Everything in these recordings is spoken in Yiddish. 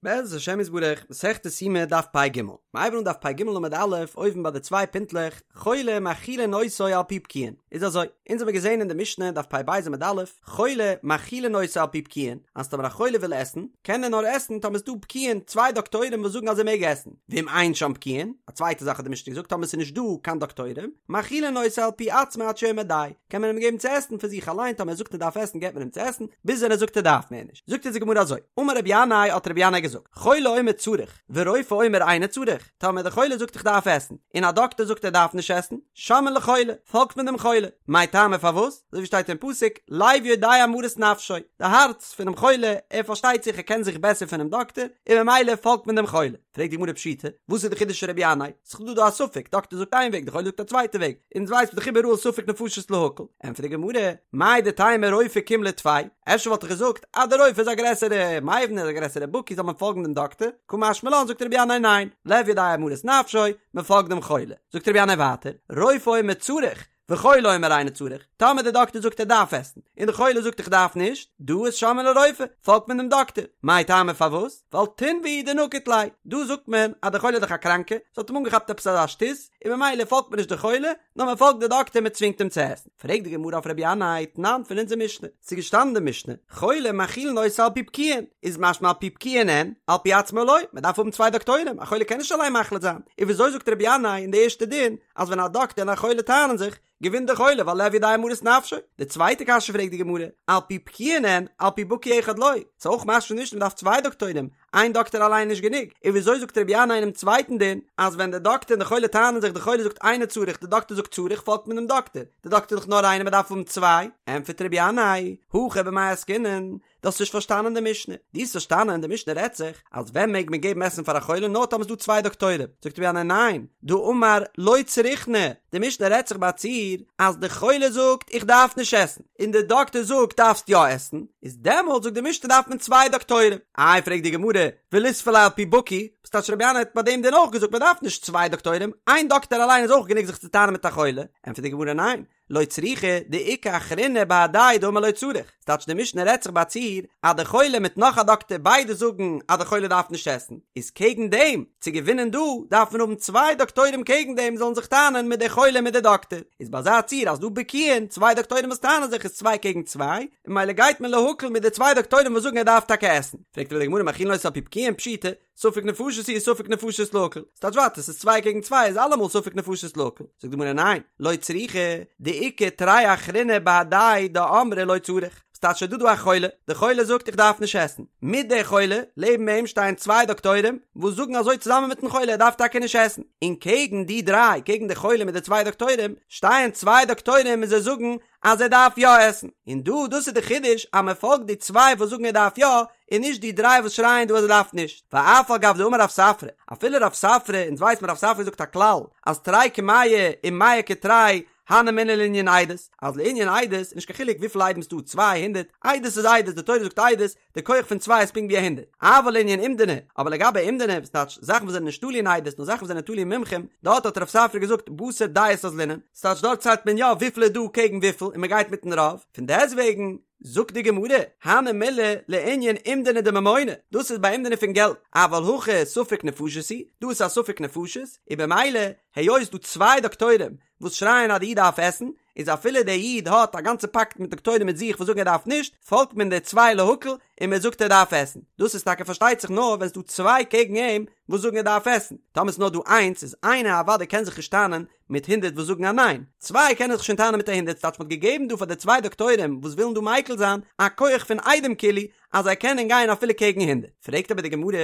בעזרת השם יתברך, מסכת יומא דף פ"ג, מ'הייבן אן דף פ"ג עמוד א', אויבן ביי די צוויי פינטלעך, חולה מאכילין אותו על פי בקיאין, איז אזוי, אונז האמיר געזען אין די משנה דף פ"ב עמוד א', חולה מאכילין אותו על פי בקיאין, אז טאמער א חולה וויל עסן, קען ער נאר עסן טאמער ס'דא בקיאין, צוויי דאקטוירים וואס זאגן אז ער מעג עסן, ואם אין שם בקיאין, א צווייטע זאך האט די משנה געזאגט טאמער ס'איז נישט דא קיין דאקטוירים, מאכילין אותו על פי עצמו עד שיאמר די, קען מען אים געבן צו עסן פון זיך אליין, טאמער ער זאגט ער דארף עסן געבט מען אים צו עסן, ביז ווען ער זאגט ער דארף מער נישט. זאגט אונז די גמרא אזוי, אמר רבי ינאי האט רבי ינאי געזאגט, חולה אומר צריך, ורופא אומר אינו צריך, טאמער דער חולה זאגט איך דארף עסן, און א דאקטער זאגט ער דארף נישט עסן, שומעין לחולה, פאלגט מען דעם חולה, מאי טעמא פארוואס? אזוי ווי שטייט אין פסוק, לב יודע מרת נפשו, די הארץ פונעם חולה, ער פארשטייט זיך ער קען זיך בעסער פונעם דאקטער, און ממילא פאלגט מען דעם חולה. פרעגט די גמרא פשיטא, וואס איז די חידוש פון רבי ינאי? ס'איז דא דא א ספק, דאקטער זאגט איין וועג, די חולה זאגט א צווייטע וועג, אונז ווייסט מען דאך איבעראל ספק נפשות להקל, ענטפערט די גמרא, מהו דתימא רופא קים ליה טפי, אפשר וואלט איך געזאגט אז די רופא איז א גרעסערע מבין, איז א גרעסערע בקי זאל מען פאלגן דעם דאקטער, קא משמע לן זאגט רבי ינאי ניין, לב יודע מרת נפשו, מען פאלגט דעם חולה, זאגט רבי ינאי ווייטער, רופא אומר צריך, וחולה אומר אינו צריך, טאמער די דאקטער זאגט ער דארף עסן, און די חולה זאגט איך דארף נישט, דא איז שומעין לרופא, פאלגט מען דעם דאקטער, מאי טעמא פארוואס? ווייל תונבא הוא דנקיט ליה, דא זאגט מען אז די חולה איז דאך א קראנקע, ס'האט אים אנגעכאפט עפעס אזא שטות, און ממילא פאלגט מען נישט די חולה, נאר מען פאלגט די דאקטער מען צווינגט אים צו עסן. פרעגט די גמרא אויף רבי ינאי, תנן פון אונזער משנה, ס'איז געשטאנען אין די משנה, חולה מאכילין אותו על פי בקיאין, איז משמע על פי בקיאין אין, על פי עצמו לא, מען דארף האבן צוויי דאקטוירים, א חולה קען נישט אליין מחליט זיין, און וויאזוי זאגט רבי ינאי אין די ערשטע דין, אז ווען א דאקטער און א חולה טענה'ן זיך, געווינט דער חולה ווייל לב יודע מרת נפשו. די צווייטע קשיא פרעגט די גמרא, על פי בקיאין אין, על פי בקי אחד לא, ס'איז אויך משמע נישט מ'דארף צוויי דאקטוירים, איין דאקטער אליין איז נישט גענוג, און וויאזוי זאגט רבי ינאי אינעם צווייטן דין, אז ווען דער דאקטער און די חולה טענה'ן זיך די חולה זאגט אינו צריך די דאקטער זאגט צריך פאלגט מען דעם דאקטער, די דאקטער איז דאך נאר איינער מ'דארף האבן צוויי, ענטפערט רבי ינאי, הכא במאי עסקינן, דו האסט נישט פארשטאנען די משנה. דו האסט פארשטאנען די משנה רעדט זיך אז ווען מעג מען געבן עסן פאר א חולה נאר טאמער ס'איז דא צוויי דאקטוירים. זאגט רבי ינאי ניין, דאמר לא צריכנא, די משנה רעדט זיך ביי א ציור אז די חולה זאגט איך דארף נישט עסן, און די דאקטער זאגט דארפסט יא עסן, איז דעמאלט זאגט די משנה דארף מען צוויי דאקטוירים. איי פרעגט די גמרא, וליספו ליה על פי בקי, וואס טייטש רבי ינאי האט ביי דעם דין אויך געזאגט מען דארף נישט צוויי דאקטוירים, איין דאקטער אליין איז אויך גענוג זיך צו טענה'ן מיט א חולה, ענטפערט די גמרא ניין, לא צריכא דאיכא אחרינא בהדיה דאמר לא צריך, ס'טייטש די משנה רעדט זיך ביי א ציור אז די חולה מיט נאך א דאקטער ביידע זאגן אז די חולה דארף נישט עסן, איז קעגן דעם צו געווינען דא דארף מען האבן צוויי דאקטוירים קעגן דעם זאלן זיך טענה'ן מיט די חולה מיט די דאקטער, איז ביי אזא ציור אז דא בקיאין צוויי דאקטוירים וואס טענה'ן זיך איז צוויי קעגן צוויי, און ממילא גייט מען להקל מיט די צוויי דאקטוירים וואס זאגן ער דארף טאקע עסן. פרעגט אבער די גמרא מאכילין אותו על פי בקיאין פשיטא, ספק נפשות הוא ספק נפשות להקל, ס'טייטש ווייטער ס'איז צוויי קעגן צוויי איז אלעמאל ספק נפשות להקל, זאגט די גמרא ניין, לא צריכא, דאיכא תרי אחריני בהדיה דאמרי לא צריך, ס'טייטש ס'איז דא דא א חולה, די חולה זאגט איך דארף נישט עסן, מיט די חולה, לעבן אים שטייען צוויי דאקטוירים וואס זאגן אזוי צוזאמען מיטן חולה ער דארף טאקע נישט עסן, און קעגן די דריי, קעגן די חולה מיט די צוויי דאקטוירים, שטייען צוויי דאקטוירים און זיי זאגן אז ער דארף יא עסן, און דא דאס איז די חידוש אז מען פאלגט די צוויי וואס זאגן ער דארף יא, און נישט די דריי וואס שרייען דא אז ער דארף נישט, ואף על גב דאמר רב ספרא, אפילו רב ספרא, אונז ווייסט מען רב ספרא זאגט א כלל, אז תרי כמאה ומאה כתרי, הני מילי לענין עדות, אז לענין עדות איז נישט קיין חילוק וויפיל עדים ס'דא, 200, עדות איז עדות, די תורה זאגט עדות, די כח פון צוויי איז פונקט ווי א הונדערט, אבל לענין אומדנא, אבער לגבי אומדנא, וואס טייטש זאכן וואס זענען נישט תלוי אין עדות, נאר זאכן וואס זענען תלוי אין מומחים, דארט האט רב ספרא געזאגט בתר דעות אזלינן, ס'טייטש דארט ציילט מען יא וויפיל איז דא קעגן וויפיל און מ'גייט מיטן רוב, פון דעסטוועגן, זאגט די גמרא, הני מילי לענין אומדנא דממונא, דאס איז ביי אומדנא פון געלט, אבל הכא ספק נפשות הוא, דא איז א ספק נפשות, און במילא, היות ס'דא צוויי דאקטוירים וואס שרייען אז די איד דארף עסן, איז אפילו דער איד האט א גאנצע פאקט מיט דאקטוירים מיט זיך וואס זאגן ער דארף נישט, פאלגט מען די צוויי להקל און מען זאגט ער דארף עסן. דאס איז טאקע פארשטייט זיך נאר ווען ס'דא צוויי קעגן אים וואס זאגן ער דארף עסן, טאמער ס'איז נאר דא איינס איז איינער אוודאי קען זיך נישט טענה'ן מיט הונדערט וואס זאגן א ניין, צוויי קענען זיך שוין טענה'ן מיט א הונדערט, ס'טייטש מ'האט געגעבן דא פאר די צוויי דאקטוירים וואס ווילן דא מיקל זיין א כח פון עדים כאילו אז זיי קענען גיין אפילו קעגן הונדערט. פרעגט אבער די גמרא,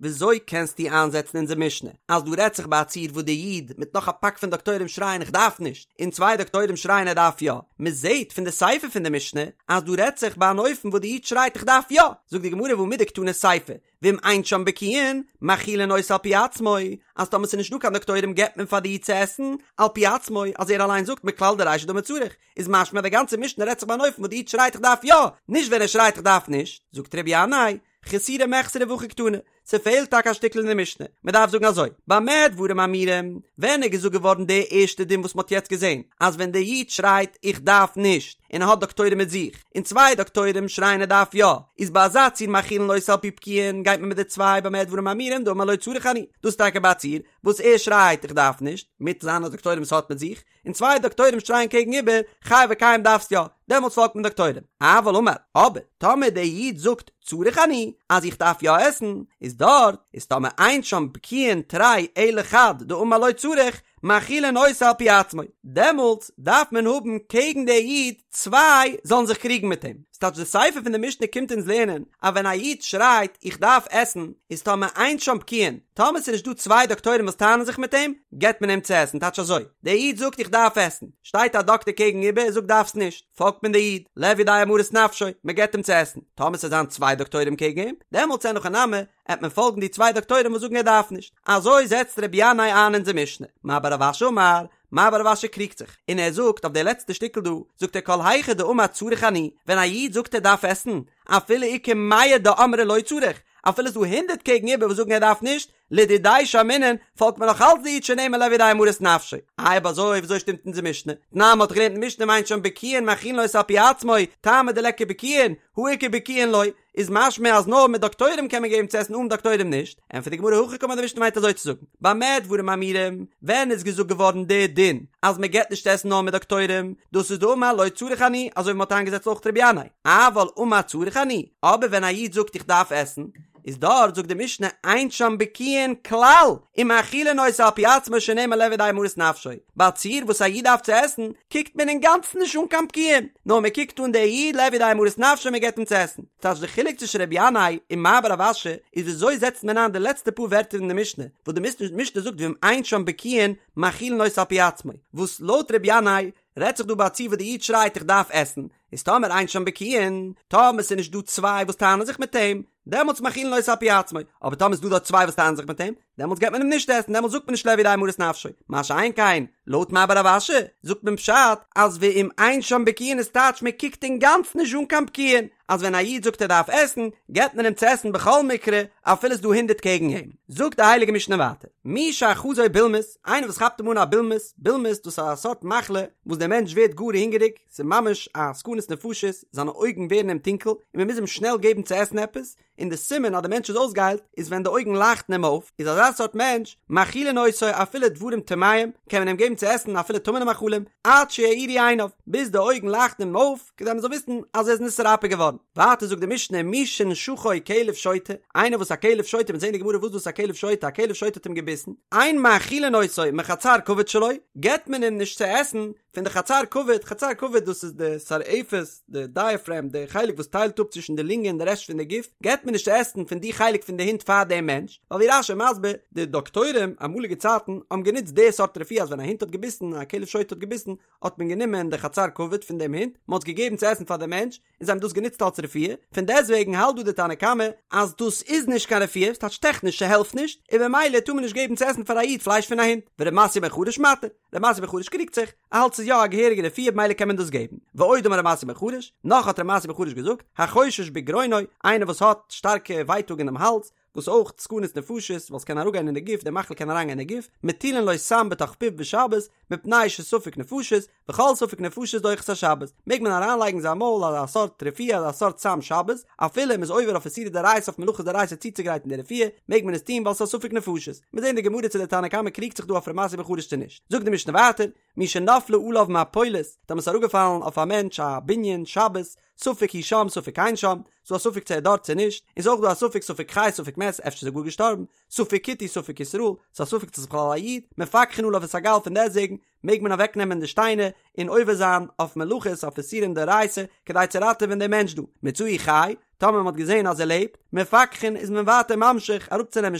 וויאזוי קענסטו איינזעצן אונזער משנה אז דא רעדט זיך ביי א ציור וואס די איד מיט נאך א פאק פון דאקטוירים שרייען איך דארף נישט, און צוויי דאקטוירים שרייען ער דארף יא, מ'זעט פון די סיפא פון די משנה אז דא רעדט זיך ביי אן אופן וואס די איד שרייט איך דארף יא, זאגט די גמרא והא מדקתני סיפא, ואם אין שם בקיאין, מאכילין אותו על פי עצמו, אז טאמער ס'איז נישט דא קיין דאקטוירים געבט מען פאר די איד צו עסן, על פי עצמו, אז ער אליין זאגט מכלל דרישא דאמר צריך, איז משמע די גאנצע משנה רעדט זיך ביי אן אופן וואס די איד שרייט איך דארף יא, נישט ווען ער שרייט איך דארף נישט, זאגט רבי ינאי, חסורי מחסרא והכי קתני, ס'פעלט טאקע א שטיקל אין די משנה, מ'דארף זאגן אזוי, במה דברים אמורים, ווען איז געזאגט געווארן די ערשטע דין וואס מ'האט יעצט געזען, אז ווען דער איד שרייט איך דארף נישט, און ער האט דאקטוירים מיט זיך, און צוויי דאקטוירים שרייען ער דארף יא, איז ביי אזא ציור מאכילין אותו על פי בקיאין, גייט מען מיט די צוויי במה דברים אמורים דאמר לא צריך אני, דאס איז טאקע ביי א ציור וואס ער שרייט איך דארף נישט, מיט זיינע דאקטוירים וואס ער האט מיט זיך, און צוויי דאקטוירים שרייען קעגן איבער, חי וקיים דארפסט יא, דעמאלטס פאלגט מען דאקטוירים. אבל אמר, אבער, טאמער דער איד זאגט צריך אני, אז איך דארף יא עסן, איז דארט, איז טאמער אין שם בקיאין תרי אלא חד דאמר לא צריך, מאכילין אותו על פי עצמו, דעמאלטס דארף מען האבן קעגן דער איד צוויי זאלן זיך קריגן מיט אים. ס'טייטש די סיפא פון די משנה קומט אונז לערנען אז ווען א איד שרייט איך דארף עסן איז טאמער אין שם בקיאין, טאמער ס'איז נישט דא צוויי דאקטוירים וואס טענה'ן זיך מיט אים, געבט מען אים צו עסן, טייטש אזוי, דער איד זאגט איך דארף עסן, שטייט א דאקטער קעגן איבער און זאגט דארפסט נישט, פאלגט מען די איד, לב יודע מרת נפשו, מען געבט אים צו עסן, טאמער ס'זיין צוויי דאקטוירים קעגן אים, דעמאלטס אין הכי נמי, עט מען פאלגן די צוויי דאקטוירים וואס זאגן ער דארף נישט, אזוי זעצט רבי ינאי איין אונזער משנה, מר בר רב אשי אמר, מר בר רב אשי קריגט זיך, און ער זאגט אויף די לעצטע שטיקל דא, זאגט ער כל היכא דאמר צריך אני, ווען א איד זאגט ער דארף עסן, אפילו איכא מאה דאמרי לא צריך, אפילו ס'דא הונדערט קעגן איבער וואס זאגן ער דארף נישט, לדידיה שמעינן, פאלגט מען נאך אלץ די איד שנאמר לב יודע מרת נפשו. איי אויב אזוי וויאזוי שטימט אונזער משנה? תנן מ'האט געלערנט אין משנה אם אין שם בקיאין מאכילין אותו על פי עצמו, טעמא דליכא בקיאין, הא איכא בקיאין לא, איז משמע אז נאר מיט דאקטוירים קען מען געבן צו עסן אן דאקטוירים נישט, ענטפערט די גמרא הכי קאמר די משנה מיינט אזוי צו זאגן, במה דברים אמורים, ווען איז געזאגט געווארן די דין אז מען געבט נישט עסן נאר מיט דאקטוירים, דאס איז דאמר לא צריך אני, אזוי ווי מען האט איינגעזעצט אויך רבי ינאי, אבל אמר צריך אני, אבער ווען א איד זאגט איך דארף עסן, איז דארט זאגט די משנה אין שם בקיאין כלל, ומאכילין אותו על פי עצמו שנאמר לב יודע מרת נפשו, ביי א ציור וואס א איד דארף צו עסן, קוקט מען אינגאנצן נישט אן קיין בקיאין, נאר מען קוקט אן דער איד לב יודע מרת נפשו מען געבט אים צו עסן. ס'טייטש די חילוק צווישן רבי ינאי און מר בר רב אשי איז וויאזוי זעצט מען איין די לעצטע פאר ווערטער אין די משנה, וואס די משנה זאגט ואם אין שם בקיאין מאכילין אותו על פי עצמו, וואס לויט רבי ינאי רעדט זיך דא ביי א ציור וואס די איד שרייט איך דארף עסן, איז טאמער אין שם בקיאין, טאמער ס'איז נישט דא צוויי וואס טענה'ן זיך מיט אים, דעמאלטס מאכילין אותו על פי עצמו, אבער טאמער ס'איז דא דארט צוויי וואס טענה'ן זיך מיט אים, דעמאלטס געבט מען אים נישט עסן, דעמאלטס זאגט מען נישט לב יודע מרת נפשו, מה שאין כן, לויט מר בר רב אשי, זאגט מען פשט, אז ואם אין שם בקיאין איז טייטש מען קוקט אינגאנצן נישט אן קיין בקיאין, אז ווען א איד זאגט ער דארף עסן, געבט מען אים צו עסן בכל מקרה, אפילו ס'איז דא הונדערט קעגן אים. זאגט די הייליגע משנה ווייטער, מי שאחזו בולמוס, איינער וואס כאפט אים אן א בולמוס, בולמוס דאס איז א סארט מחלה וואס דער מענטש ווערט גאר הונגעריג, ס'איז ממש א סכנת נפשות, זיינע אויגן ווערן אים טונקל, און מען מוז אים שנעל געבן צו עסן עפעס, און די סימן אז די מענטש איז אויסגעהיילט איז ווען די אויגן לייכטן אים אויף, איז אזא סארט מענטש, מאכילין אותו אפילו דברים טמאים, קען מען אים געבן צו עסן אפילו טמא'נע מאכלים, עד שיאירו עיניו, ביז די אויגן לייכטן אים אויף, כדי מען זאל וויסן אז ער איז נתרפא געווארן. ווייטער זאגט די משנה מי שנשכו כלב שוטה, איינער וואס א כלב שוטה, מ'וועט זען אין די גמרא וואס דאס א כלב שוטה, א כלב שוטה האט אים געביסן, אין מאכילין אותו מחצר כבד שלו, געבט מען אים נישט צו עסן פון די חצר כבד, חצר כבד דאס איז די סרעפת, די דייעפרעם, די חלק וואס טיילט אפ צווישן די לונגען און די רעשט פון די גוף, געבט מען נישט צו עסן פון די חלק פון די הונט פאר דעם מענטש, ווייל ווי רש"י מסביר, די דאקטוירים אמאליגע צייטן האבן גענוצט די סארט רפואה אז ווען א הונט האט געביסן, א כלב שוטה האט געביסן, האט מען גענומען די חצר כבד פון דעם הונט, מען האט עס געגעבן צו עסן פאר דעם מענטש, און זיי האבן דאס גענוצט אלס רפואה, פון דעסטוועגן האלט דא די תנא קמא אז דאס איז נישט קיין רפואה, ס'טייטש טעכניש ס'העלפט נישט, און במילא טאר מען נישט געבן צו עסן פאר א איד פלייש פון א הונט, ור' מתיא בן חרש מתיר, ר' מתיא בן חרש קריגט זיך, ער האלט ס'איז יא א געהעריגע רפואה במילא קען מען דאס געבן, ועוד אמר ר' מתיא בן חרש, נאך האט ר' מתיא בן חרש געזאגט, החושש בגרונו, איינער וואס האט שטארקע ווייטאג אינעם האלז, וואס אויך סכנת נפשות, ווייל ס'קען אראפגיין אין די גוף, די מחלה קען אריינגיין אין די גוף, מטילין לו סם בתוך פיו בשבת, מפני שספק נפשות, וכל ספק נפשות דוחה את השבת, מעג מען אריינלייגן אין זיין מויל אזא סארט רפואה אזא סארט סם שבת, אפילו מ'איז עובר אויף איסורי דאורייתא אויף מלאכות דאורייתא צוצוגרייטן די רפואה, מעג מען עס טון ווייל ס'איז א ספק נפשות. מיר זעהן די גמרא צו די תנא קמא קריגט זיך דא אויף ר' מתיא בן חרש צו נישט. זאגט די משנה ווייטער, מי שנפלה עליו מפולת, טאמער ס'איז אראפגעפאלן אויף א מענטש א בנין שבת, ספק הוא שם ספק אין שם, ס'דא א ספק צו ער איז דארט צו נישט, און ס'איז אויך דא א ספק ספק חי ספק מת, אפשר איז ער גאר געשטארבן, ספק כותי ספק ישראל, ס'איז א ספק צו ס'איז בכלל א איד, מפקחין עליו את הגל פון דעסטוועגן מעג מען אוועק נעמען די שטיינער און עובר זיין אויף מלאכות אויף איסורים דאורייתא כדי צו ראטעווען דעם מענטש דא, מצאוהו חי, טאמער מ'האט געזען אז ער לעבט, מפקחין איז מען ווייטער ממשיך אראפצונעמען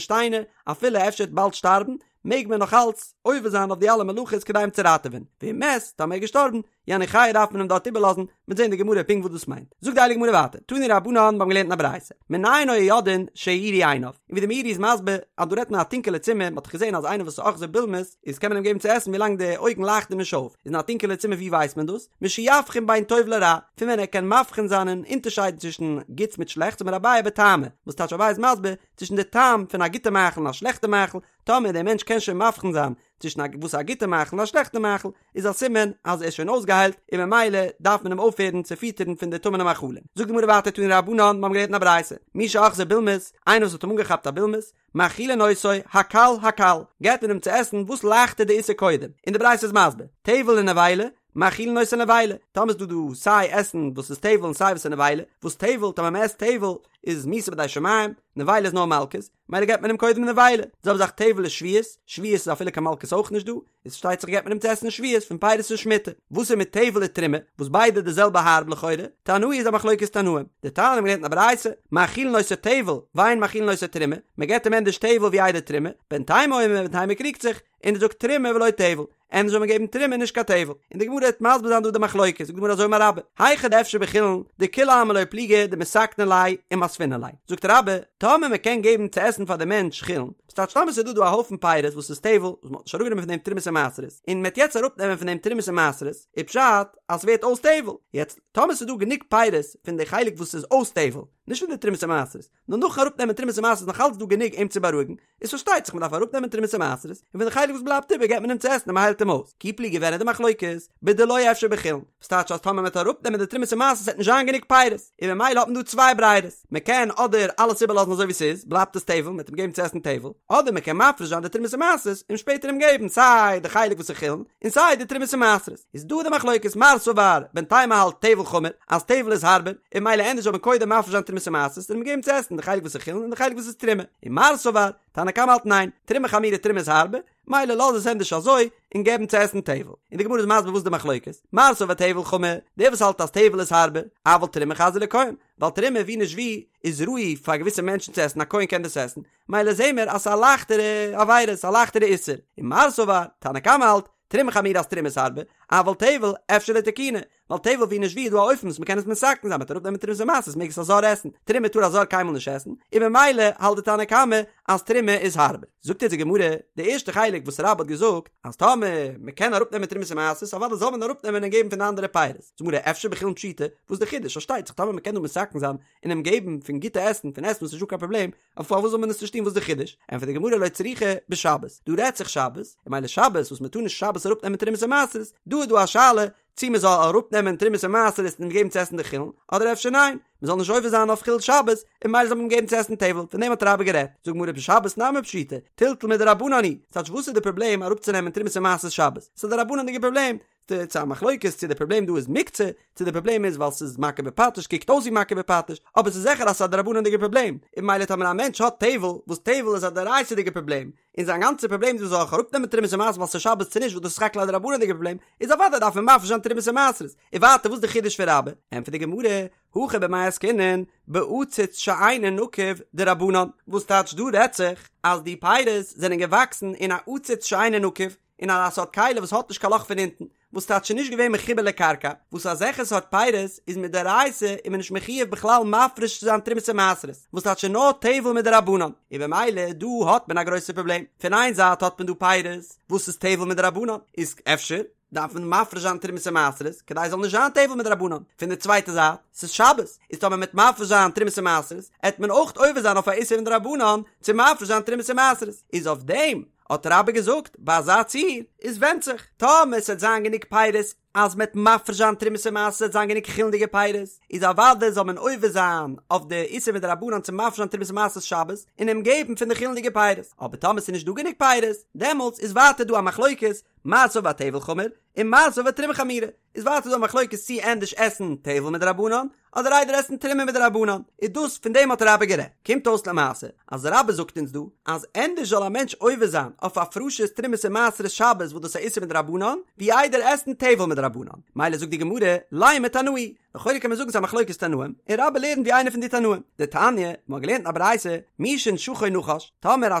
שטיינער אפילו אפשר ער וועט באלד שטארבן, מעג מען נאך אלץ עובר זיין אויף די אלע מלאכות כדי אים צו ראטעווען, ואם מת, טאמער ער איז געשטארבן, יניחהו דארף מען אים דארט איבערלאזן, מ'וועט זען אין די גמרא פונקט וואס דאס מיינט. זאגט די הייליגע גמרא ווייטער, תנו רבנן, מיר האבן געלערנט אין א ברייתא, מנין היו יודעין שהאירו עיניו, און ווי די מאירי איז מסביר אז דא רעדט מען א טונקעלע צימער, מ'האט דאך געזען אז איינער וואס איז אוחזו בולמוס איז קען מען אים געבן צו עסן ווילאנג די אויגן לייכטן נישט אויף, איז אין א טונקעלע צימער ווי ווייסט מען דאס? משיבחין בין טוב לרע, פון ווען ער קען מבחין זיין און אונטערשיידן צווישן גוטס מיט שלעכטס אמר אביי בטעמא, וואס טייטש אביי איז מסביר, צווישן די טעם פון א גוטע מאכל און א שלעכטע מאכל, טאמער דער מענטש קען שוין מבחין זיין צווישן א וואס איז א גוטע מאכל און א שלעכטע מאכל, איז א סימן אז ער איז שוין אויסגעהיילט און ממילא דארף מען אים אויפהערן צו פיטערן פון די טמא'נע מאכלים. זאגט די גמרא ווייטער תנו רבנן, מיר האבן געלערנט אין א ברייתא, מי שאחזו בולמוס, איינער וואס האט אים אנגעכאפט א בולמוס, מאכילין אותו, הקל הקל, געבט מען אים צו עסן וואס לייכטער די איסור קודם, און די ברייתא איז מסביר, טבל ונבילה, מאכילין אותו נבילה, טאמער איז דא דא סיי עסן וואס איז טבל און סיי וואס איז נבילה, וואס טבל, טאמער מען עסט טבל איז מיתה בידי שמים, נבילה איז נאר מלקות, מילא געבט מען אים קודם נבילה, די זעלבע זאך טבל ושביעית, שביעית איז אפילו קיין מלקות אויך נישט דא, איז פארשטייט זיך געבט מען אים צו עסן שביעית פון פירות פון שמיטה, וואס איז מיט טבל ותרומה, וואס ביידע די זעלבע הארב לכאורה, תנאי איז א מחלוקת תנאים, דתניא מ'האט געלערנט אין א ברייתא, מאכילין אותו טבל, ואין מאכילין אותו תרומה, מען געבט אים ענדערש טבל ווי איידער תרומה, בן תימא אומר בן תימא קריגט זיך, און ער זאגט תרומה ולא טבל, ענדערש זאל מען געבן תרומה נישט קיין טבל, און די גמרא וועט מסביר זיין דא די מחלוקת, זאגט די גמרא אזוי אמר רבה, היכא דאפשר בחולין, דכולי עלמא לא פליגי דמתקני ליה ומספינן ליה, זאגט רבה, טאמער מען קען געבן צו עסן פאר די מענטש חולין, וואס טייטש טאמער ס'איז דא דא א הויפן פירות וואס איז טבל, וואס מען האט נישט אראפגענומען פון דעם תרומות און מעשרות, און מען וועט יעצט אראפנעמען פון דעם תרומות און מעשרות, איז פשט אז ס'ווערט אויס טבל, יעצט טאמער ס'איז דא גענוג פירות פון די חלק וואס איז אויס טבל, נישט פון די תרומות און מעשרות, נאר נאכן אראפנעמען תרומות און מעשרות איז נאך אלץ דא גענוג אים צו בארואיגן, איז פארשטייט זיך מען דארף אראפנעמען תרומות און מעשרות, און פון די חלק וואס בלייבט איבער געבט מען אים צו עסן און מען היילט אים אויס. כי פליגי ווען איז די מחלוקת? בדלא אפשר בחולין, וואס טייטש אז טאמער מען וועט אראפנעמען די תרומות און מעשרות וועט נישט זיין גענוג פירות, און ממילא האט מען דא צוויי ברירות, מען קען אדער אלעס איבערלאזן אזוי ווי ס'איז, בלייבט עס טבל, מען וועט אים געבן צו עסן טבל, אדער מען קען מפריש זיין די תרומות און מעשרות און שפעטער אים געבן סיי די חלק וואס איז חולין און סיי די תרומות און מעשרות. איז דא די מחלוקת מר סבר בן תימא האלט טבל חמור אז טבל איז הארבער און ממילא ענדערש זאל מען קודם מפריש זיין תרומות און מעשרות און אים געבן צו עסן די חלק וואס איז חולין און די חלק וואס איז תרומה און מר סבר תנא קמא האלט ניין תרומה חמירא תרומה איז הארבער מילא לאז עס ענדערש אזוי און געבן צו עסן טבל און די גמרא איז מסביר וואס די מחלוקת מר סבר טבל חמור דער וואס האלט אז טבל איז הארבער אבל תרומה חזיא לכהן ווייל תרומה ווי נישט ווי איז ראוי פאר געוויסע מענטשן צו עסן א כהן קען דאס עסן מילא זעהן מיר אז ס'איז א לייכטערע עבירה ס'איז א לייכטערע איסור און מר סבר תנא קמא האלט תרומה חמירא אז תרומה איז הארבער, אבל טבל אפשר לתקוני, ווייל טבל ווי נישט ווי איז דא א אופן וואס מ'קען עס מתקן זיין מ'וועט אראפנעמען תרומות ומעשרות מעג עס א זר עסן, תרומה טאר א זר קיינמאל נישט עסן, און ממילא האלט די תנא קמא אז תרומה איז הארבער. זאגט אונז די גמרא, די ערשטע חלק וואס רבה האט געזאגט, אז טאמער מ'קען אראפנעמען תרומות ומעשרות אוודאי זאל מען אראפנעמען און געבן פון די אנדערע פירות, זאגט די גמרא אפשר בחולין פשיטא, וואס איז די חידוש? פארשטייט זיך טאמער מ'קען דא מתקן זיין און אים געבן פון גוטע עסן, פון עסן וואס איז נישטא קיין פראבלעם, אבער פארוואס זאל מען עס נישט טון וואס די חידוש? ענטפערט די גמרא לא צריכא בשבת, דא רעדט זיך שבת, און ממילא שבת וואס מען טאר נישט שבת אראפ נעמען תרומות און מעשרות, דא איז דא א שאלה צי מען זאל אראפ נעמען תרומות און מעשרות און געבן צו עסן די חולין, אדער אפשר ניין, מען זאל נישט עובר זיין אויף חילול שבת, און ממילא זאל מען געבן צו עסן טבל, פון דעם האט רבה גערעדט, זאגט גמרא בשבת נמי פשיטא, טלטול מדרבנן הוא, ס'טייטש וואס איז די פראבלעם אראפצונעמען תרומות און מעשרות שבת? ס'איז א דרבנן'דיגע פראבלעם, ס'איז א מחלוקת צו די פראבלעם דא איז מוקצה, צו די פראבלעם איז ווייל ס'איז מכה בפטיש קוקט אויס ווי מכה בפטיש, אבער ס'איז זיכער אז ס'איז א דרבנן'דיגע פראבלעם, און ממילא טאמער א מענטש האט טבל, וואס טבל איז א דאורייתא'דיגע פראבלעם, און זיין גאנצע פראבלעם איז זאל איך אראפנעמען תרומות ומעשרות ווייל ס'איז שבת צו נישט וואס דאס איז סך הכל א דרבנן'דיגע פראבלעם, איז אוודאי דארף מען מפריש זיין תרומות ומעשרות, און ווייטער וואס איז די חידוש פון רבה? ענטפערט די גמרא, הכא במאי עסקינן, בעציץ שאינו נקוב דרבנן, וואס טייטש דא רעדט זיך אז די פירות זענען געוואקסן אין א עציץ שאינו נקוב, אין אזא סארט כלי וואס האט נישט קיין לאך פון אונטן, וואס טייטש נישט געווען מחובר לקרקע, וואס אזעלכע סארט פירות איז מדאורייתא איז מען נישט מחויב בכלל מפריש צו זיין תרומות און מעשרות, וואס טייטש נאר טבל מדרבנן, און במילא דא האט מען א גרויסע פראבלעם, פון איין זייט האט מען דא פירות וואס איז טבל מדרבנן, איז אפשר דארף מען מפריש זיין תרומות און מעשרות כדי עס זאל נישט זיין טבל מדרבנן, פון די צווייטע זייט ס'איז שבת, איז טאמער מ'עט מפריש זיין תרומות און מעשרות עט מען אויך עובר זיין אויף א איסור מדרבנן צו מפריש זיין תרומות און מעשרות, איז אויף דעם האט רבה געזאגט, ביי אזא ציור איז ווענדט זיך, טאמער ס'עט זיין גענוג פירות אז מ'עט מפריש זיין תרומות און מעשרות ס'עט זיין גענוג חולין'דיגע פירות, איז אוודאי זאל מען עובר זיין אויף די איסור מדרבנן צו מפריש זיין תרומות און מעשרות שבת און אים געבן פון די חולין'דיגע פירות, אבער טאמער ס'איז נישט דא גענוג פירות, דעמאלטס איז ווייטער דא א מחלוקת, מר סבר טבל חמור, און מר סבר תרומה חמירא. איז ווייטער דא א מחלוקת צי ענדערש עסן טבל מדרבנן אדער איידער עסן תרומה מדרבנן, איז דאס פון דעם האט רבה גערעדט. קומט אויס למעשה אז רבה זאגט אונז דא אז ענדערש זאל א מענטש עובר זיין אויף הפרשת תרומות און מעשרות שבת וואס דאס איז א איסור מדרבנן ווי איידער עסן טבל מדרבנן. מדרבנן. מילא זאגט די גמרא, לימא תנאי, לכאורה קען מען זאגן ס'איז א מחלוקת תנאים, און רבה לערנט ווי איינער פון די תנאים. דתניא, מ'האט געלערנט אין א ברייתא, מי שנשכו נחש, טאמער א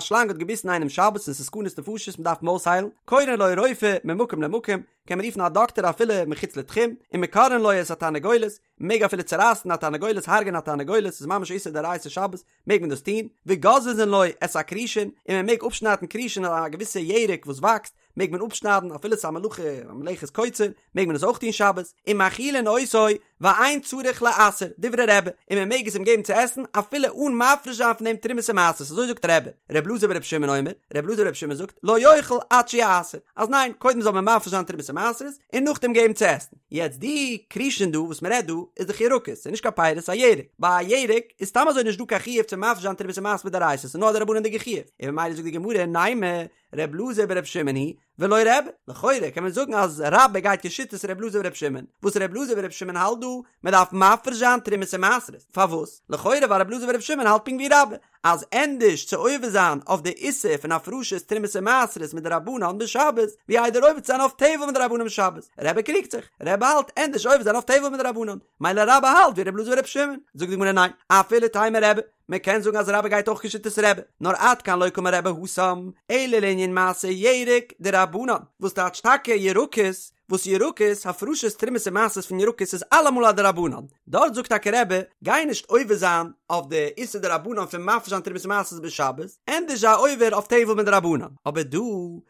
שלאנג האט געביסן איינעם שבת און ס'איז סכנת נפשות מ'דארף אים אויסהיילן, קורין לו רופא ממקום למקום, קען מען רופן א דאקטער אפילו מחוץ לתחום, ומקרעין לו את התרנגולת, מ'מעג אפילו צורייסן א תרנגולת, הרג'ענען א תרנגולת, ס'איז ממש איסור דאורייתא שבת, מעג מען דאס טון, וגוזזין לו את הכרישין, און מען מעג אפשניידן כרישין א געוויסע ירק וואס וואקסט, מעג מען אפשניידן אפילו ס'איז א מלאכה א מלאכת קוצר, מעג מען עס אויך טון שבת, ומאכילין אותו ואין צריך לעשר, דברי רבי, און מען מעג עס אים געבן צו עסן אפילו אן מפריש זיין פון דעם תרומות ומעשרות, אזוי זאגט רבי, ר' אלעזר בר' שמעון אומר, ר' אלעזר בר' שמעון זאגט, לא יאכל עד שיעשר, אז ניין, קודם זאל מען מפריש זיין תרומות ומעשרות, און נאכדעם געבן צו עסן. יעצט די כרישין דא וואס מען רעדט דא איז דאך ירקות, ס'איז נישט קיין פירות, ס'איז א ירק, ביי א ירק איז סתם אזוי נישט דא קיין חיוב צו מפריש זיין תרומות ומעשרות מדאורייתא, ס'איז נאר א דרבנן'דיגע חיוב, און ממילא זאגט די גמרא נימא ר' אלעזר בר' שמעון היא ולא רבי, לכאורה קען מען זאגן אז רבה גייט כשיטת ר' אלעזר בר' שמעון, וואס ר' אלעזר בר' שמעון האלט דא, מען דארף מפריש זיין תרומות ומעשרות, פארוואס? לכאורה ווייל ר' אלעזר בר' שמעון האלט פונקט ווי רבה, אז ענדערש צו עובר זיין אויף די איסור פון הפרשת תרומות ומעשרות מדרבנן בשבת, ווי איידער עובר צו זיין אויף טבל מדרבנן בשבת. רבי קריגט זיך, רבי האלט ענדערש עובר זיין אויף טבל מדרבנן, מילא רבה האלט ווי רבי אלעזר ברבי שמעון, זאגט די גמרא ניין, אפילו תימא רבי, מען קען זאגן אז רבה גייט אויך כשיטת רבי, נאר עד כאן לא קאמר רבי התם, אלא לענין מעשר ירק דרבנן, וואס טייטש טאקע ירקות, וואס ירקות, הפרשת תרומות ומעשרות פון ירקות איז אלעמאל א דרבנן, דארט זאגט טאקע רבי, גיי נישט עובר זיין אויף די איסור דרבנן פון מפריש זיין תרומות ומעשרות בשבת, ענדערש זיי עובר אויף טבל מדרבנן, אבער דא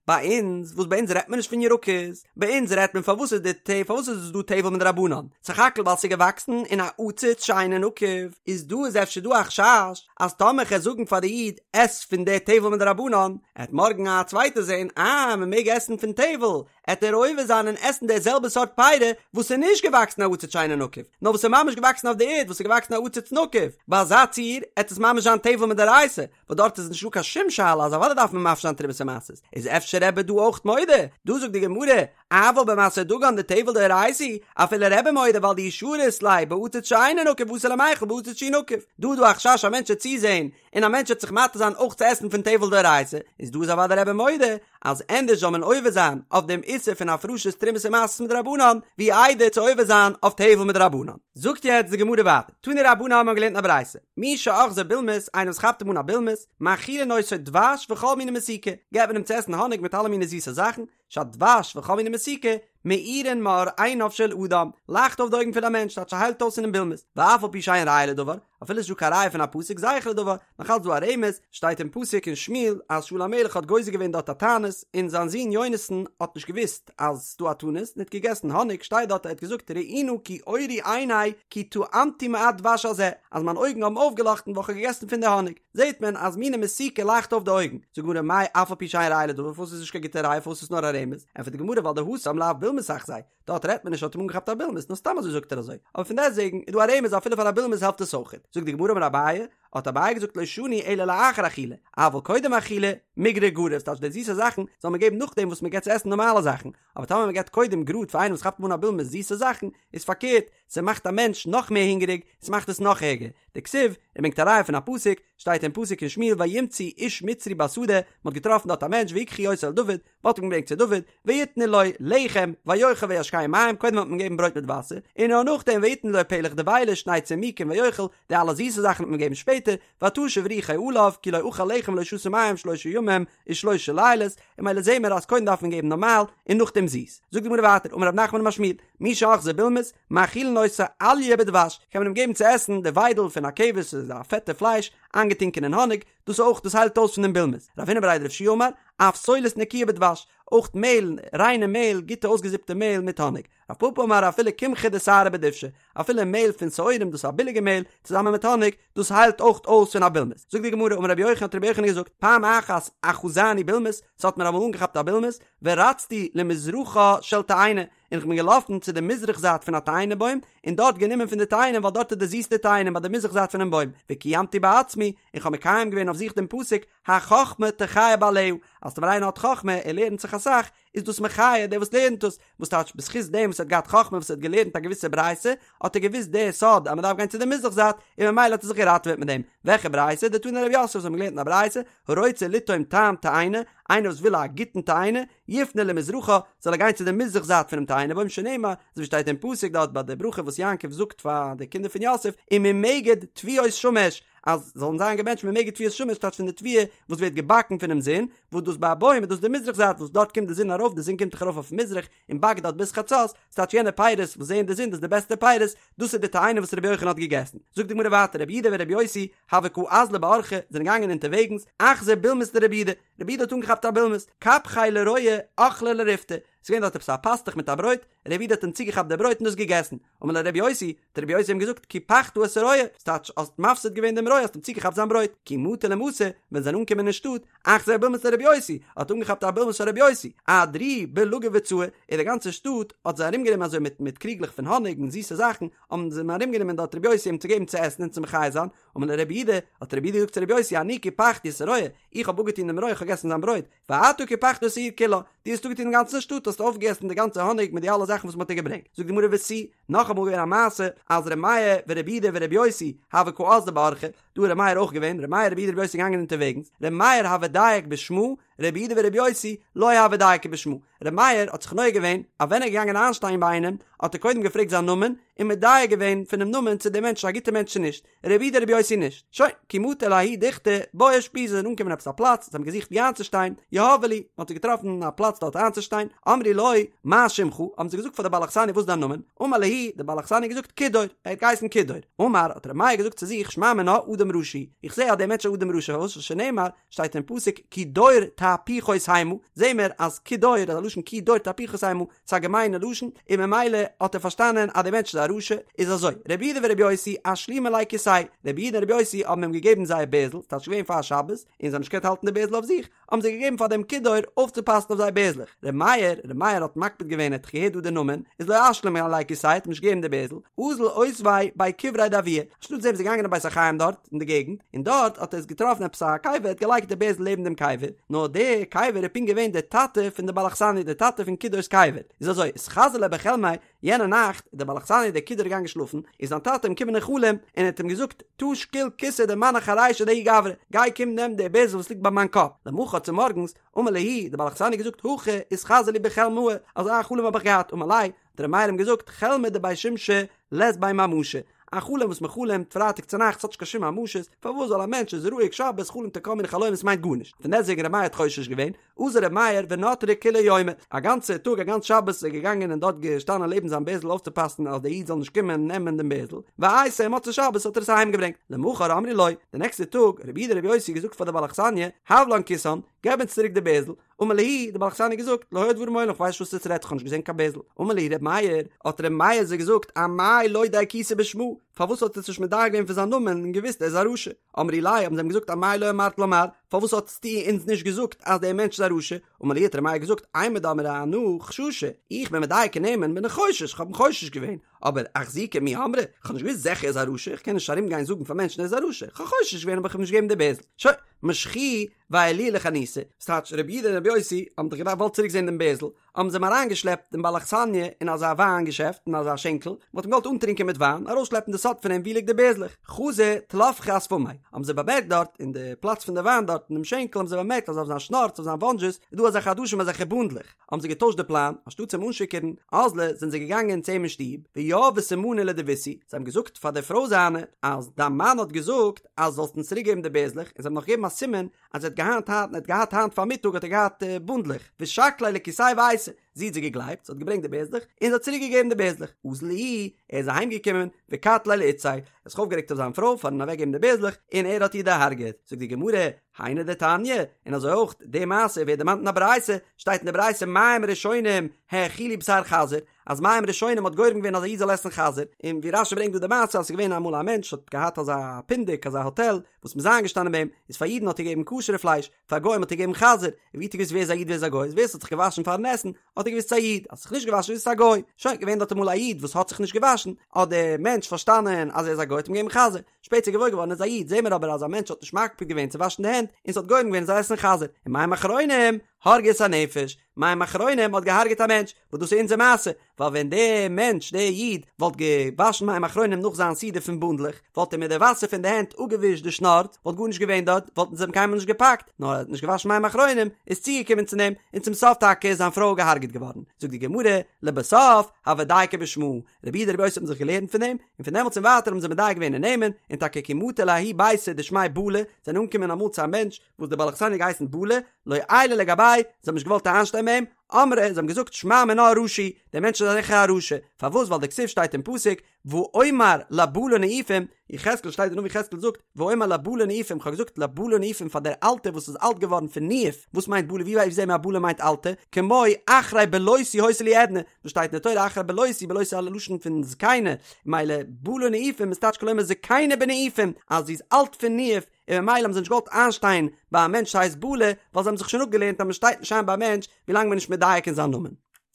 ביי אונז, וואס ביי אונז רעדט מען נישט פון ירקות, ביי אונז רעדט מען פארוואס איז די פארוואס איז דא טבל מדרבנן, סך הכל ווייל ס'איז געוואקסן אין א עציץ שאינו נקוב, איז דא איז אפשר דא א חשש אז טאמער כ'על זאגן פאר די איד עס פון די טבל מדרבנן, עט מארגן א צווייטער זען אה מ'מעג עסן פון טבל, עט ער עובר זיין און עסן די זעלבע סארט פירי וואס איז נישט געוואקסן א עציץ שאינו נקוב, נאר וואס איז ממש געוואקסן אויף די ערד וואס איז געוואקסן א עציץ נקוב, ביי אזא ציור עט עס ממש זיין טבל מדאורייתא, וואס דארט איז נישטא קיין שום שאלה אז אוודאי דארף מען מפריש זיין תרומות ומעשרות, איז אפשר רבי דא אויך מודה? דא זאגט די גמרא, אבל במעשר דגן דטבל דאורייתא, אפילו רבי מודה ווייל דאי שרית ליה בעציץ שאינו נקוב אתי למיכל בעציץ שהוא נקוב, דא איז דא א חשש א מענטש וועט צוזעהן און א מענטש וועט זיך מתיר זיין אויך צו עסן פון טבל דאורייתא, איז דא איז אוודאי רבי מודה אז ענדערש זאל מען עובר זיין אויף דעם איסור פון הפרשת תרומות ומעשרות מדרבנן, ווי איידער צו עובר זיין אויף טבל מדרבנן. זאגט יעצט די גמרא ווייטער, תנו רבנן האבן געלערנט אין א ברייתא, מי שאחזו בולמוס, איינער וואס כאפט אים אן א בולמוס, מאכילין אותו דבש וכל מיני מתיקה, געבט מען אים צו עסן האניג מיט אלע מיני זיסע זאכן, שהדבש וכל מיני מתיקה, מאירין מאור עיניו של אדם, לייכט אויף די אויגן פון א מענטש, טייטש ס'היילט אויס פונעם בולמוס, ואף על פי שאין ראיה לדבר, אפילו ס'נישט דא קיין ראיה פון א פסוק זכר לדבר, נאך אלץ דא א רמז, שטייט אין פסוק אין שמואל אז שאול המלך האט גוזר געווען דארט א תענית, און זיין זון יונתן האט נישט געוואוסט אז ס'דא א תענית, און האט געגעסן האניג, שטייט דארט ער האט געזאגט ראו נא כי אורו עיני כי טעמתי מעט דבש הזה, אז מיין אויגן האבן אויפגעלאכטן ווייל כ'האב געגעסן פון די האניג. זעהט מען אז מיני מתיקה לייכט אויף די אויגן, זאגט די גמרא מאי אף על פי שאין ראיה לדבר פארוואס איז נישט קיין גוטע ראיה פארוואס איז נאר א רמז, ענטפערט די גמרא ווייל דהתם לאו בולמוס אחזיה, דארט רעדט מען נישט האט אים אנגעכאפט א בולמוס נאר סתם אזוי זאגט ער אזוי, אבער פון דעסטוועגן איז דא א רמז אפילו פאר א בולמוס העלפט עס אויכעט, זאגט די גמרא אמר אביי, האט אביי געזאגט לא שנו אלא לאחר אכילה, אבל קודם אכילה, מיגרא גריר, ס'טייטש די זיסע זאכן זאל מען געבן נאכדעם וואס מען געבט צו עסן נארמאלע זאכן, אבער טאמער מען געבט קודם גראד פאר איינעם וואס כאפט אים אן א בולמוס זיסע זאכן, איז פארקערט, ס'מאכט א מענטש נאך מער הונגעריג, ס'מאכט עס נאך ערגער. דכתיב, ער ברענגט א ראיה פון א פסוק, שטייט אין פסוק אין שמואל וימצאו איש מצרי בשדה, מ'האט געטראפן דארט א מענטש ויקחו אותו אל דוד, מ'האט אים געברענגט צו דוד, ויתנו לו לחם, ויאכל וישקהו מים, קודם האט מען געגעבן ברויט מיט וואסער, און נאר נאכדעם ויתנו לו פלך דבילה שני צימוקים ויאכל, די אלע זיסע זאכן האט מען געגעבן שפעטער, ותשב רוחו עליו, כי לא אכל לחם ולא שתה מים שלשה ימים ושלשה לילות, און ממילא זעהן מיר אז קודם דארף מען געבן נארמאל און נאכדעם זיס. זאגט די גמרא ווייטער, אמר רב נחמן אמר שמואל, מי שאחזו בולמוס, מאכילין אותו אליה בדבש, קען מען אים געבן צו עסן די וויידל פון א כבש, ס'איז א פעטע פלייש, איינגעטונקען אין האניג, דאס אויך, דאס היילט אויס פון דעם בולמוס. רב הונא בריה דרב יהושע אמר, אף סולת נקיה בדבש, אויך מעהל, ריינע מעהל, גוטע אויסגעזיפטע מעהל מיט האניג. רב פפא אמר אפילו קמחא דשערי בדובשא, אפילו מעהל פון שעורים דאס איז א ביליגע מעהל, צוזאמען מיט האניג, דאס היילט אויך אויס פון א בולמוס. זאגט די גמרא, אמר רבי יוחנן האט רבי יוחנן געזאגט, פעם אחת אחזני בולמוס, ס'האט מיר אמאל אנגעכאפט א בולמוס, ורצתי למזרחה של תאנה, און כ'בין געלאפן צו די מזרח זייט פון א תאנה בוים, און דארט גענומען פון די תאנים ווייל דארט איז די זיסטע תאנים ביי די מזרח זייט פונעם בוים, וקיימתי בעצמי, און כ'האב מקיים געווען אויף זיך דעם פסוק, החכמה תחיה בעליה, אז טאמער איינער האט חכמה, ער לערנט זיך אסאך, איז דאס מחיה דער וואס לערנט עס, וואס טייטש בזכות דעם וואס. וואס האט געהאט חכמה וואס האט געלערנט א געוויסע ברייתא, האט ער געוואוסט די סוד אז מען דארף גיין צו די מזרח זייט, און ממילא האט ער זיך געראטעוועט מיט דעם. וועלכע ברייתא? דתני רב יוסף, אונז האבן געלערנט אין א ברייתא, הרוצה לטעום טעם תאנה, איינער וואס וויל א גוטן תאנה, יפנה למזרחה, זאל ער גיין צו די מזרח זייט פונעם תאנה בוים שנאמר, אזוי ווי שטייט אין פסוק דארט ביי די ברכה וואס יעקב זאגט פאר די קינדער פון יוסף, וממגד תבואות שמש, אז זאלן זיין געבענטשט ממגד תבואות שמש טייטש פון די תבואה וואס ווערט געבאקן פונעם זון, וואס דאס ביי א בוים איז דאס די מזרח זייט וואס דארט קומט די זון ארויף, די זון קומט דאך ארויף אויף מזרח און באקט דארט ביז חצות, ס'טייטש יענע פירות וואס זעען די זון דאס איז די בעסטע פירות, דאס איז די תאנה וואס רבי יוחנן האט געגעסן. זאגט די גמרא ווייטער רבי יהודה ורבי יוסי הוו קא אזלי באורחא זענען געגאנגען אונטערוועגנס, אחזו בולמוס דרבי יהודה, רבי יהודה האט אנגעכאפט א בולמוס, קפחיה לרועה אכליה לריפתא, ס'איז געווען דארט עפעס א פאסטוך מיט א ברויט, רבי יהודה האט אים צוגעכאפט די ברויט און דאס געגעסן, אמר ליה רבי יוסי, האט רבי יוסי אים געזאגט, קיפחת את הרועה, ס'טייטש האסט מפסיד געווען דעם רועה האסט אים צוגעכאפט זיין ברויט, כי מטו למתא, ווען זיי זענען אנגעקומען אין שטאט, אחזו בולמוס דרבי יוסי, האט אנגעכאפט א בולמוס פון רבי יוסי, אהדרוהו בלגי וצעי, און די גאנצע שטאט האט זיי ארומגענומען אזוי מיט מיט קריגלעך פון האניג און זיסע זאכן, האבן זיי אים ארומגענומען דארט רבי יוסי אים צו געבן צו עסן און צו מחיה זיין, אמר להו רבי יהודה, האט רבי יהודה געזאגט צו רבי יוסי, אני קיפחתי את הרועה, איך האב אפגעטון דעם רועה, איך האב געגעסן זיין ברויט, ואתה קיפחת את העיר כולה, דו האסט אפגעטון דעם גאנצן שטאט, האסט אויפגעגעסן די גאנצע האניג מיט די אלע זאכן וואס מען האט דיר געברענגט. זאגט די גמרא ותו, נאכאמאל געווען א מעשה, אז ר' מאיר ורבי יהודה ורבי יוסי, הוו קאזלי באורחא, דא איז ר' מאיר אויך געווען, ר' מאיר רבי יהודה רבי יוסי געגאנגען אונטערוועגנס, ר' מאיר הוה דייק בשמא, רבי יהודה ורבי יוסי לא הוו דייקי בשמא, ר' מאיר האט זיך נוהג געווען אז ווען ער איז געגאנגען איינשטיין ביי איינעם, האט ער קודם געפרעגט זיין נאמען, און מדייק געווען פונעם נאמען צו דער מענטש איז א גוטער מענטש צו נישט, רבי יהודה רבי יוסי נישט. שוין, כי מטו לההוא דוכתא, בעו אושפיזא זיי זענען אנגעקומען עפעס א פלאץ, זיי האבן געזוכט וואו איינצושטיין, יהבו להו, מען האט זיי געטראפן א פלאץ דארט איינצושטיין, אמרו לו, מה שמך, האבן זיי געזאגט פאר די בעל אכסניא וואס איז דיין נאמען, אמר להו, די בעל אכסניא האט געזאגט כידור, ער האט געהייסן כידור, אמר, האט ר' מאיר געזאגט צו זיך, שמע מינה, אדם רשע הוא, איך זע אז דער מענטש איז אדם רשע, פארוואס שנאמר, שטייט אין פסוק כי דור תהפוכות המה, זעהן מיר אז כי דור איז א לשון כי דור תהפוכות המה, ס'איז א געמיינע לשון, און ממילא האט ער פארשטאנען אז דער מענטש איז א רשע, איז אזוי, רבי יהודה ורבי יוסי אשלימו ליה כיסייהו, רבי יהודה און רבי יוסי האבן אים געגעבן זייער בערזל, ס'טייטש געווען פאר שבת, און זיי האבן נישט געקענט האלטן די בערזל אויף זיך, האבן זיי געגעבן פאר דעם כידור אויפצופאסן אויף זייער בערזלעך, רבי מאיר, רבי מאיר האט מקפיד געווען ער האט דאך געהערט דא די נאמען, איז לא אשלים ליה כיסייהו האט אים נישט געגעבן די בערזל, אזל אותביה בי קבריה דאבוה, אנשטאט דעם איז ער געגאנגען אין בית החיים דארט אין די געגנט, און דארט האט ער עס געטראפן עפעס א קבר, ער האט געלייגט די בערזל לעבן דעם קבר, נאר די קבר איז פונקט געווען די טאטע פון די בעל אכסניא, די טאטע פון כידור'ס קבר, איז אזוי, אתחזי ליה בחלמיה, יענע נאכט איז דער בעל אכסניא דער כידור געגאנגען שלאפן, איז זיין טאטע אים געקומען אין חלום, און ער האט אים געזאגט, תא שקיל כיסא דמנח ארישי דההוא גברא, גיי קום נעם די בערזל וואס ליגט ביי מיין קאפ, למחר צומארגנס, אמר להו, דער בעל אכסניא האט געזאגט, הכי אתחזי לי בחלמאי, אזא חלום האב איך געהאט, אמר ליה, האט ר' מאיר אים געזאגט, חלמא דבי שמשי לית ביה ממשא, א חלום וואס מען חלומ'ט פרייטאג צונאכטס האט נישט קיין שום ממשות, פארוואס זאל א מענטש איז רואיג שבת חלומ'ט ער כל מיני חלומות מיינט גארנישט, פון דעסטוועגן ר' מאיר האט חושש געווען, אזל ר' מאיר ונטריה כוליה יומא, א גאנצע טאג א גאנץ שבת איז ער געגאנגען און דארט געשטאנען לעבן זיין בערזל אויפצופאסן אז דער איד זאל נישט קומען נעמען דעם בערזל, ואייתיה מוצאי שבת האט ער עס אהיים געברענגט, למחר אמרו לו, די נעקסטע טאג, רבי יהודה רבי יוסי געזאגט פאר די בעל אכסניא, הב לן כיסן, געב אונז צוריק די בערזל, אמר להו, די בעל אכסניא געזאגט, לא היו דברים מעולם, כ'ווייס נישט וואס עטס רעדט, כ'האב נישט געזען קיין בערזל. אמר להו ר' מאיר, האט ר' מאיר זיי געזאגט, אמאי לא דייקתו בשמא, פארוואס האט עטס נישט מדייק געווען פון זיין נאמען און געוואוסט ער איז א רשע? אמרו ליה, האבן זיי אים געזאגט, אמאי לא אמרת לן מר, פארוואס האטסטו אונז נישט געזאגט אז דער מענטש איז א רשע? אמר להו, האט ר' מאיר געזאגט, אימר דאמרי אנא חששא, איך בין מדייק אין נעמען, בין איך חושש, כ'האב אים חושש געווען, אבער אחזוקי מי אמרי, כ'האב נישט געוואוסט זיכער ער איז א רשע, כ'קען נישט ארום גיין זאגן פאר מענטשן ער איז א רשע, כ'האב חושש געווען אבער כ'האב אים נישט געגעבן די בערזל. שוין, משכוהו ועיילוהו לחניתא, ס'טייטש רבי יהודה און רבי יוסי האבן דאך געוואלט צוריק זען דעם בערזל, האבן זיי אים אריינגעשלעפט דעם בעל אכסניא אין אזא וויין געשעפט אין אזא שענקל, מ'האט אים געוואלט אנטרינקען מיט וויין, ארויסשלעפן די סוד פון אים וואו ליגט די בערזלעך, חזו טלפחי אשפמיה, האבן זיי באמערקט דארט אין די פלאץ פון די וויין דארט אין דעם שענקל האבן זיי באמערקט אז אויף זיין שנארץ אויף זיין וואנדזשעס איז דא אזעלכע עדשים אזעלכע בונדלעך, האבן זיי געטוישט די פלאן, אנשטאט אים אנשיכור'ן, אזלו, זענען זיי געגאנגען צו אים אין שטוב, ויהבו סימנא לדביתהו, זיי האבן געזאגט פאר די פרוי זיינע, אז דיין מאן האט געזאגט אז זאלסט אונז צוריק געבן די בערזלעך, און זיי האבן נאך געגעבן א סימן אז ער האט געהאט היינט, ער האט געהאט היינט פארמיטאג האט ער געהאט בונדלעך, ושקליה לכיסיה ואייתי, זי האט זיי געגלייבט, זי האט געברענגט די בערזלעך, און זי האט צוריק געגעבן די בערזלעך, אזל איהו, ער איז אהיים געקומען, וקטליה לאיתתיה, ער האט זיך אויפגערעגט אויף זיין פרוי פארן אוועק געבן די בערזלעך, און ער האט איר דערהארגעט, זאגט די גמרא, היינו דתניא, און אזוי אויך די מעשה ווערט דערמאנט אין א ברייתא, שטייט אין די ברייתא מים ראשונים האכילו בשר חזיר, אז מים ראשונים האט גורם געווען אז א איד זאל עסן חזיר, און ווי רשי ברענגט דא די מעשה אז ס'איז געווען אמאל א מענטש האט געהאט אזא פונדק אזא האטעל וואס מ'איז איינגעשטאנען ביי אים, איז פאר אידן האט ער געגעבן כשר'ע פלייש, פאר גוים האט ער געגעבן חזיר, און ווי האט ער געוואוסט ווער איז א איד ווער איז א גוי, איז ווער ס'האט זיך געוואשן פארן עסן האט ער געוואוסט ס'איז א איד, אז ס'האט זיך נישט געוואשן איז עס א גוי, שוין, געווען דארט אמאל א איד וואס האט זיך נישט געוואשן, האט דער מענטש פארשטאנען אז ער איז א גוי האט אים געגעבן חזיר, שפעטער געוואויר געווארן ער איז א איד, זעהן מיר אבער אז א מענטש האט נישט מקפיד געווען צו וואשן די הענט, און ס'האט גורם געווען ער זאל עסן חזיר, און מים אחרונים. הרגו את הנפש, מים אחרונים האט געהארגעט א מענטש, וואס דאס איז אונזער מעשה, ווייל ווען דער מענטש, דער איד, וואלט געוואשן מים אחרונים נאך זיין סעודה פון בונדלעך, וואלט ער מיט די וואסער פון די הענט אפגעווישט די שנארץ, וואלט גארנישט געווען דארט, וואלטן זיי אים קיינמאל נישט געפאקט, נאר ער האט נישט געוואשן מים אחרונים, איז צוגעקומען צו דעם, און צום סוף טאקע איז זיין פרוי געהארגעט געווארן. זאגט די גמרא, לבסוף, הוו דייקי בשמא, רבי יהודה רבי יוסי האבן זיך געלערנט פון דעם, און פון דעמאלטס און ווייטער האבן זיי מדייק געווען אין נעמען, און טאקע כי מטו לההוא ביתא דשמיה בלה, זענען אנגעקומען אמאל צו א מענטש, וואס דער בעל אכסניא האט געהייסן בלה, לא עיילו לגביה, זיי האבן נישט געוואלט איינשטיין ביי אים, אמרי, זיי האבן געזאגט שמע מינה רשע הוא, דער מענטש איז זיכער א רשע, פארוואס ווייל דכתיב שטייט אין פסוק, ואומר לבלה ניאופים, יחזקאל שטייט דער נביא יחזקאל זאגט, ואומר לבלה ניאופים, כ'האב געזאגט לבלה ניאופים פאר דער אלטער וואס איז אלט געווארן פון ניאוף, וואס מיינט בלה, ווי זעהן מיר אז בלה מיינט אלטע, כמו אחרי בלותי היתה לי עדנה, וואס שטייט אין די תורה אחרי בלותי, בלותי איז א לשון פון זקנה, מילא בלה ניאופים איז טייטש כלומר זקנה בניאופים, אז זי איז אלט פון ניאוף, און ממילא האבן זיי נישט געוואלט איינשטיין ביי א מענטש וואס הייסט בלה, ווייל זיי האבן זיך שוין אפגעלערנט אז מען שטייט נישט איין ביי א מענטש ווילאנג מען איז נישט מדייק אין זיין נאמען.